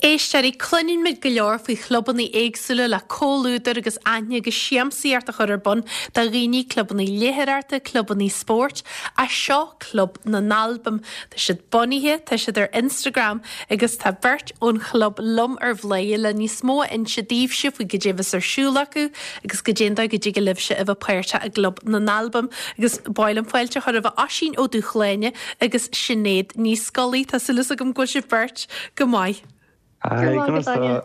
Éisteoirí, cluineann muid go leor faoi chlubanna éagsúla le comhluadar agus aithne agus siamsaíocht a chur ar bun do dhaoine, clubanna léitheoireachta, clubanna spóirt, ach seo Club na nAlbam. Tá siad bunaithe, tá siad ar Instagram agus tá beirt ón chlub liom ar Bhladhaire le níos mó a inse daoibhse faoi goidé a bheas ar siúl acu agus goidé an dóigh go dtig libhse a bheith páirteach i gClub na nAlbam. Agus ba mhaith liom fáilte a chur roimh Oisín Ó Dúshláine agus Sinéad Ní Scolaí. Tá súil agam go bhfuil sibh beirt go maith. Hi, conas tá?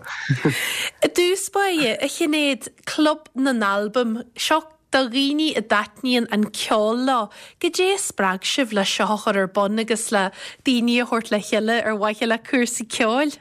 I dtús báire, a Shinéad, Club na nAlbam, seo do dhaoine a dtaitníonn an ceol leo. Goidé a spreag sibh le seo a chur ar bun agus le daoine a thabhairt le chéile ar mhaithe le cúrsaí ceoil?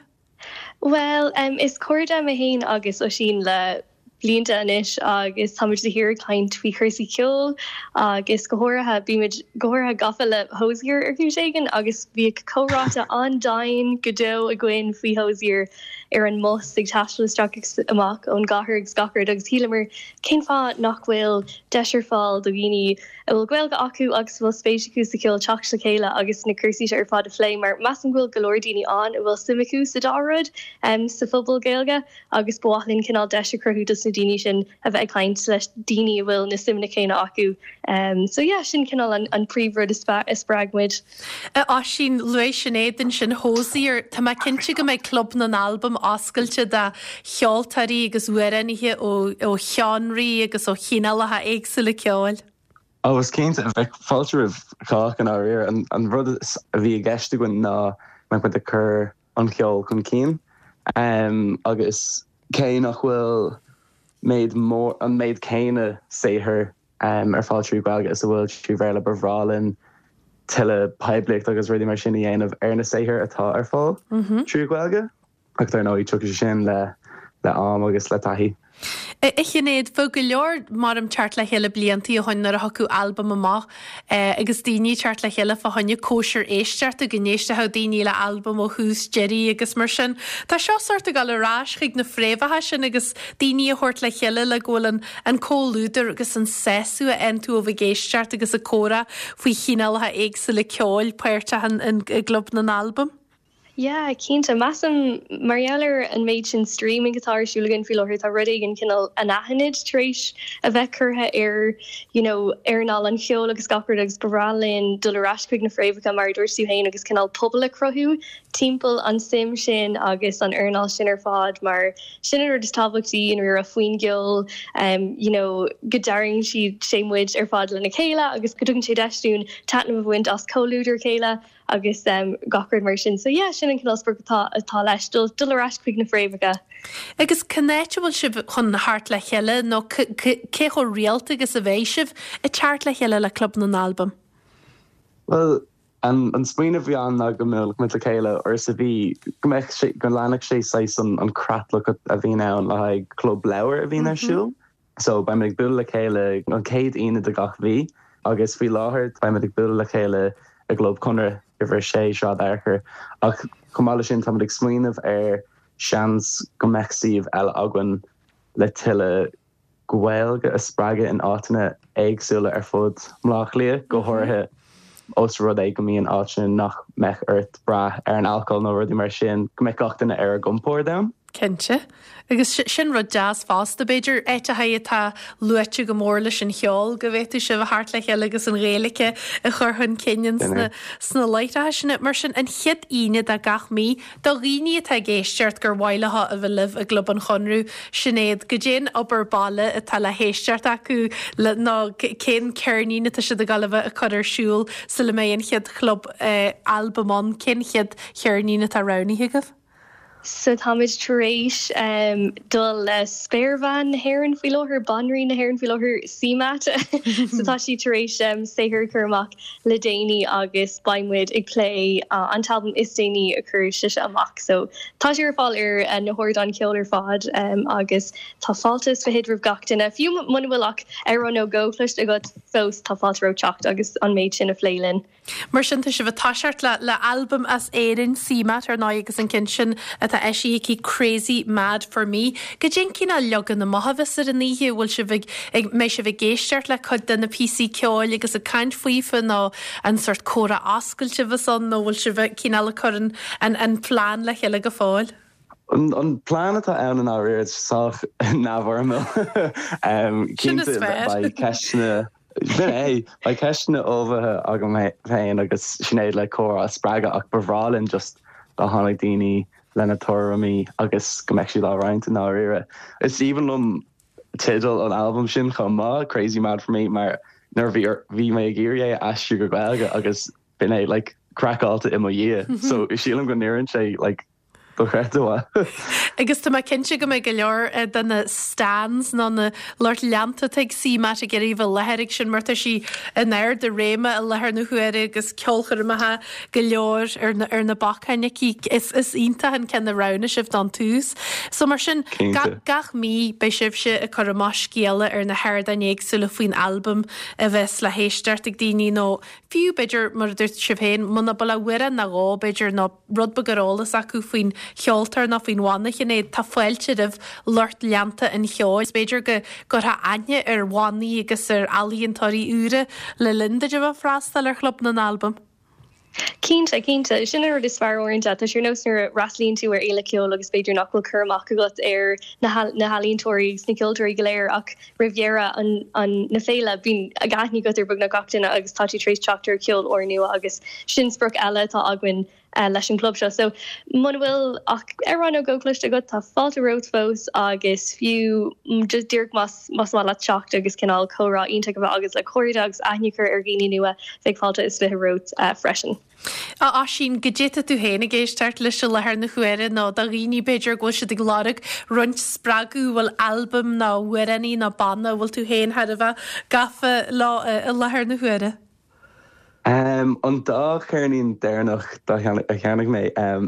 Bhuel, is cairde mé féin agus Oisín le blianta anois agus táimid de shíor ag caint faoi chúrsaí ceoil agus go háirithe, bímid go háirithe gafa le Hozier ar chúis éigin agus bhíodh comhráite an-domhain go deo againn faoi Hozier ar an mbus ag taisteal isteach agus amach ón gcathair agus gach rud agus shíleamar cén fáth nach bhfuil deis ar fáil do dhaoine a bhfuil Gaeilge acu agus a bhfuil spéis acu sa cheol teacht le chéile agus na cúrsaí seo ar fad a phlé mar measaim go bhfuil go leor daoine ann a bhfuil suim acu sa dá rud sa phobal Gaeilge agus ba mhaith linn cineál deis a chruthú dos na daoine sin a bheith ag caint leis daoine a bhfuil na suimeanna céanna acu. So yeah, sin cineál an an príomhrud a spreag muid. A Oisín, luaigh Sinéad ansin Hozier, tá mé cinnte go mbeidh Club na nAlbam oscailte do cheoltóirí agus amhránaithe ó ó sheánraí agus ó chineálacha éagsúla ceoil. Ó, is cinnte, bheadh fáilte roimh chách i ndáiríre. An rud a bhí i gceist againn ná go mbeadh muid ag cur an cheoil chun cinn agus cé nach bhfuil méid mór, an méid céanna saothair ar fáil trí Ghaeilge is a bhfuil trí Bhéarla, ba bhreá linn tuilleadh poiblíocht agus rudaí mar sin a dhéanamh ar na saothair atá ar fáil trí Ghaeilge. Ach dar ndóigh, tiocfaidh sé sin le am agus le taithí. A Shinéad, bheadh go leor maram teacht le chéile bliantaí ó shoin nuair a thiocfadh albam amach agus daoine ag teacht le chéile fá choinne cóisir éisteachta, go n-éistfeadh daoine le albam ó thús deiridh agus mar sin. Tá seo sórt ag dul ar ais chuig na fréamhacha sin agus daoine a thabhairt le chéile le go bhfuil an an comhluadar agus an sásamh a fhaigheann tú ó bheith ag éisteacht agus ag comhrá faoi chineálacha éagsúla ceoil páirteach i gClub na nAlbam. Yeah, cinnte. Measaim, mar gheall ar an méid sin streaming atá ar siúl againn faoi láthair, tá rud éigin cineál anaithnid tar éis a bheith curtha ar, you know, earnáil an cheoil agus gach rud agus ba bhreá linn dul ar ais chuig na fréamhacha, mar a dúirt tú féin, agus cineál pobal a chruthú timpeall an suim sin agus an earnáil sin ar fad mar sin an rud is tábhachtaí i ndáiríre faoin gceol, you know, go dtarraingíonn sé muid ar fad lena chéile agus go dtugann sé deis dúinn taitneamh a bhaint as comhluadar a chéile. agus gach rud mar sin. So yeah, sin an cineál sprioc atá atá leis, dul dul ar ais chuig na fréamhacha. Agus cén áit a bhfuil sibh chun theacht le chéile nó cé chomh rialta agus a bheidh sibh ag teacht le chéile le Club na nAlbam? Bhuel, an an smaoineamh a bhí ann ná go mbeadh muid le chéile uair sa mhí, go mbeadh sé, go leanfadh sé saghas an an creatlach a bhíonn ann le haghaidh club leabhar a bhíonn ar siúl. So beimid ag bualadh le chéile an chéad Aoine de gach mhí agus faoi láthair beimid ag bualadh le chéile i gClub Chonradh, uimhir 6, Sráid Fhearchair. Ach chomh maith leis sin táimid ag smaoineamh ar seans go mbeadh suíomh eile againn le tuilleadh Gaeilge a spreagadh in áiteanna éagsúla ar fud Bhaile Átha Cliath, go háirithe ós rud é go mbíonn áiteanna nach mbeadh ort brath ar an alcól nó rudaí mar sin, go mbeadh gach duine ar a gcompord ann. Cinnte. Agus sin rud deas fosta, b'fhéidir, áiteacha atá luaite go mór leis an cheol, go bhféadfadh sibh a theacht le chéile agus an Ghaeilge a chur chun cinn sna láithreacha sin. Mar sin, an chéad Aoine de gach mí, do dhaoine atá ag éisteacht gur mhaith leo a bheith libh i gClub an Chonradh, Sinéad, goidé an obair baile atá le héisteacht acu le, nó cén ceirnín atá siad ag dul a bheith ag cur ar siúl sula mbeidh an chéad chlub albam ann, cén chéad cheirnín atá roghnaithe agaibh? So táimid tar éis dul le spéirbhean na hÉireann faoi láthair, banríon na hÉireann faoi láthair, CMAT. So tá sí tar éis saothar a chur amach le déanaí agus beidh muid ag plé an t-albam is déanaí a chuir sise amach. So tá sé ar fáil ar na hardáin ceoil ar fad agus tá fáilte is fichead roimh gach duine. Fiú muna bhfuil ach amhrán nó dhó cloiste agat fós, tá fáilte romhat teacht agus an méid sin a phlé linn. Mar sin, tá sibh ag toiseacht le le albam as Éirinn, CMAT, ar ndóigh, agus an ceann sin atá eisithe aici, Crazy Mad For Me. Goidé an cineál leagan amach a bheas ar an oíche? Bhfuil sibh ag, ag, mbeidh sibh ag éisteacht le cuid de na píosaí ceoil agus ag caint faofa nó an sórt comhrá oscailte a bheas ann nó bhfuil sibh cineál ag cur an, an, an plean le chéile go fóill? An plean atá ann i ndáiríre, sách neamhfhoirmiúil. Cinnte beidh ceisteanna, sin é, beidh ceisteanna ullmhaithe agam féin agus Sinéad le comhrá a spreagadh ach ba bhreá linn just dá tháinig daoine lena tuairimí agus go mbeadh siad á roinnt i ndáiríre. Is aoibhinn liom teideal an albaim sin chomh maith, Crazy Mad For Me, mar nuair a bhí mé ag iarraidh é a aistriú go Gaeilge agus b'in é like craiceáilte i mo dhiaidh so sílim go n-oireann sé like dochreidte mhaith. Agus tá mé cinnte go mbeidh go leor de na stans nó na lucht leanta atá ag CMAT ag iarraidh a bheith i láthair ag sin mar tá sí in ard a réime i láthair na huaire agus ceolchoirmeacha go leor ar na ar na bacáin aici. Is is iontach an ceann a roghnaigh sibh don tús. So mar sin gach gach mí beidh sibhse ag cur amach scéala ar na hardáin éagsúla faoin albam a bheas le héisteacht ag daoine nó fiú b'fhéidir mar a dúirt sibh féin muna bhfuil ach amhrán nó dhó b'fhéidir nó rud beag ar eolas acu faoin cheoltóir nó faoin bhanna, Sinéad, tá fáilte roimh lucht leanta an cheoil. B'fhéidir go gcuirfeá aithne ar bhannaí agus ar ealaíontóirí úra le linn duit a bheith ag freastal ar Chlub na nAlbam. Cinnte, cinnte. Sin an rud is fearr uaireanta. Tá sé ar nós nuair a fhreastalaíonn tú ar fhéile ceoil agus b'fhéidir nach bhfuil cur amach agat ar na healaíontóirí agus na ceoltóirí go léir ach roimh dheireadh an na féile bíonn aithne agat ar beagnach gach duine agus tá tú tar éis teacht ar cheol úrnua agus sin sprioc eile atá againn leis an gclub seo. So muna bhfuil ach amhrán nó dhó cloiste agat tá fáilte romhat fós agus fiú just díreach más más maith leat teacht agus cineál comhrá iontach a bheith agat le cairde agus aithne a chur ar dhaoine nua bheadh fáilte is 20 romhat freisin. A Oisín, goidé atá tú féin ag éisteacht leis i láthair na huaire nó do dhaoine b'fhéidir go bhfuil siad ag lorg roinnt spreagadh, bhfuil albam nó amhránaí nó banna a bhfuil tú féin thar a bheith gafa leo i láthair na huaire? An dá cheirnín deireanach a cheannaigh mé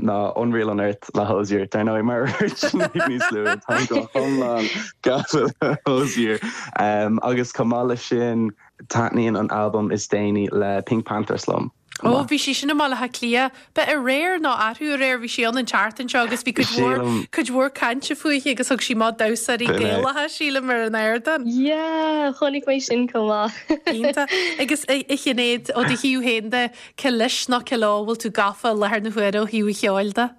ná Unreal Unearth le Hozier, dar ndóigh, mar a dúirt Sinéad níos luaithe, táim go hiomlán gafa le Hozier. Agus chomh maith leis sin, taitníonn an albam is déanaí le PinkPantheress liom. Ó, bhí sí sin i mBaile Átha Cliath. Ba aréir nó arú aréir, bhí sí ann an tseachtain seo agus bhí cuid mhór, cuid mhór cainte fúithi agus thug sí amach damhsóirí Gaelacha, sílim, ar an ardán. Yeah, chonaic mé sin chomh maith. Iontach. Agus a Shinéad, ó do thaobh féin de, cé leis nó cé leo a bhfuil tú gafa i láthair na huaire ó thaobh an cheoil de?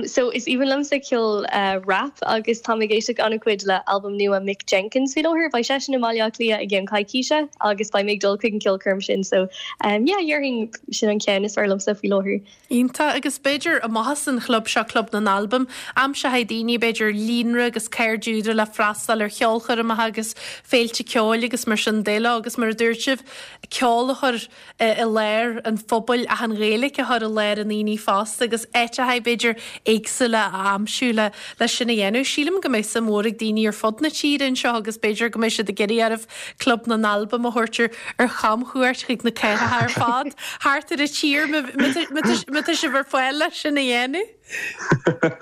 So is aoibhinn liomsa ceol rap agus táim ag éisteacht an-chuid le albam nua Mick Jenkins faoi láthair. Beidh seisean i mBaile Átha Cliath i gceann coicíse agus beidh mé ag dul chuig an ceolchoirm sin so yeah déarfainn sin an ceann is fearr liomsa faoi láthair. Iontach agus b'fhéidir amach as an chlub seo, Club na nAlbam, aimseoidh daoine b'fhéidir líonra agus cairde úra le freastal ar cheolchoirmeacha agus féilte ceoil agus mar sin de leo agus mar a dúirt sibh, ceol a chur i lár an phobail ach an Ghaeilge a chur i lár an aonaigh fosta agus áiteacha b'fhéidir éagsúla a aimsiú le leis sin a dhéanamh. Sílim go mbeidh suim mhór ag daoine ar fud na tíre anseo agus b'fhéidir go mbeidh siad ag iarraidh oraibh Club na nAlbam a thabhairt ar ar chamchuairt chuig na cathracha ar fad thart ar an tír má tá sibh ar fáil leis sin a dhéanamh.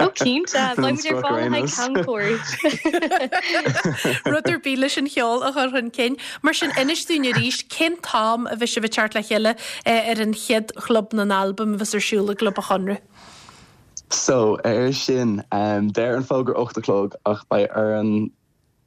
Ó cinnte, beidh muid ar fáil le haghaidh camchuairt. Rud ar bith leis an cheol a chur chun cinn. Mar sin, inis dúinn arís, cén t-am a bheidh sibh ag teacht le chéile ar an chéad Chlub na nAlbam a bheas ar siúl i gClub an Chonradh? So, ar sin, deir an fógra 8 a chlog ach beidh orainn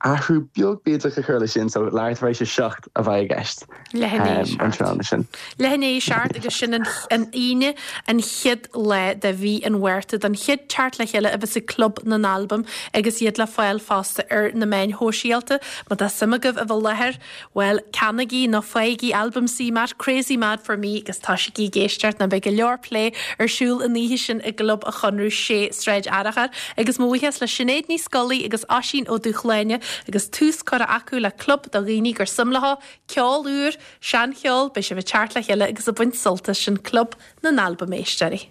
athrú beag bídeach a chur leis sin, so leathuair tar éis a 7 a bheidh i gceist Leath i ndiaidh an tráthnóna sin. Leath i ndiaidh a 7 agus sin an Aoine an chéad lá de mhí an Mhárta don chéad teacht le chéile a bheas ag Club na nAlbam agus iad le fáil fosta ar na meáin shóisialta. Má tá suim agaibh a bheith i láthair, Bhuel, ceannaigí nó faighigí albam CMAT, Crazy Mad For Me, agus tosaígí ag éisteacht nó beidh go leor plé ar siúl an oíche sin i gClub an Chonradh, 6 Sráid Fhearchair. Agus mo bhuíochas le Sinéad Ní Scolaí agus Oisín Ó Dúshláine agus tús curtha acu le club do dhaoine gur suim leo ceol úr, seancheol, beidh sibh ag teacht le chéile agus ag baint sult as sin Club na nAlbam, a éisteoirí.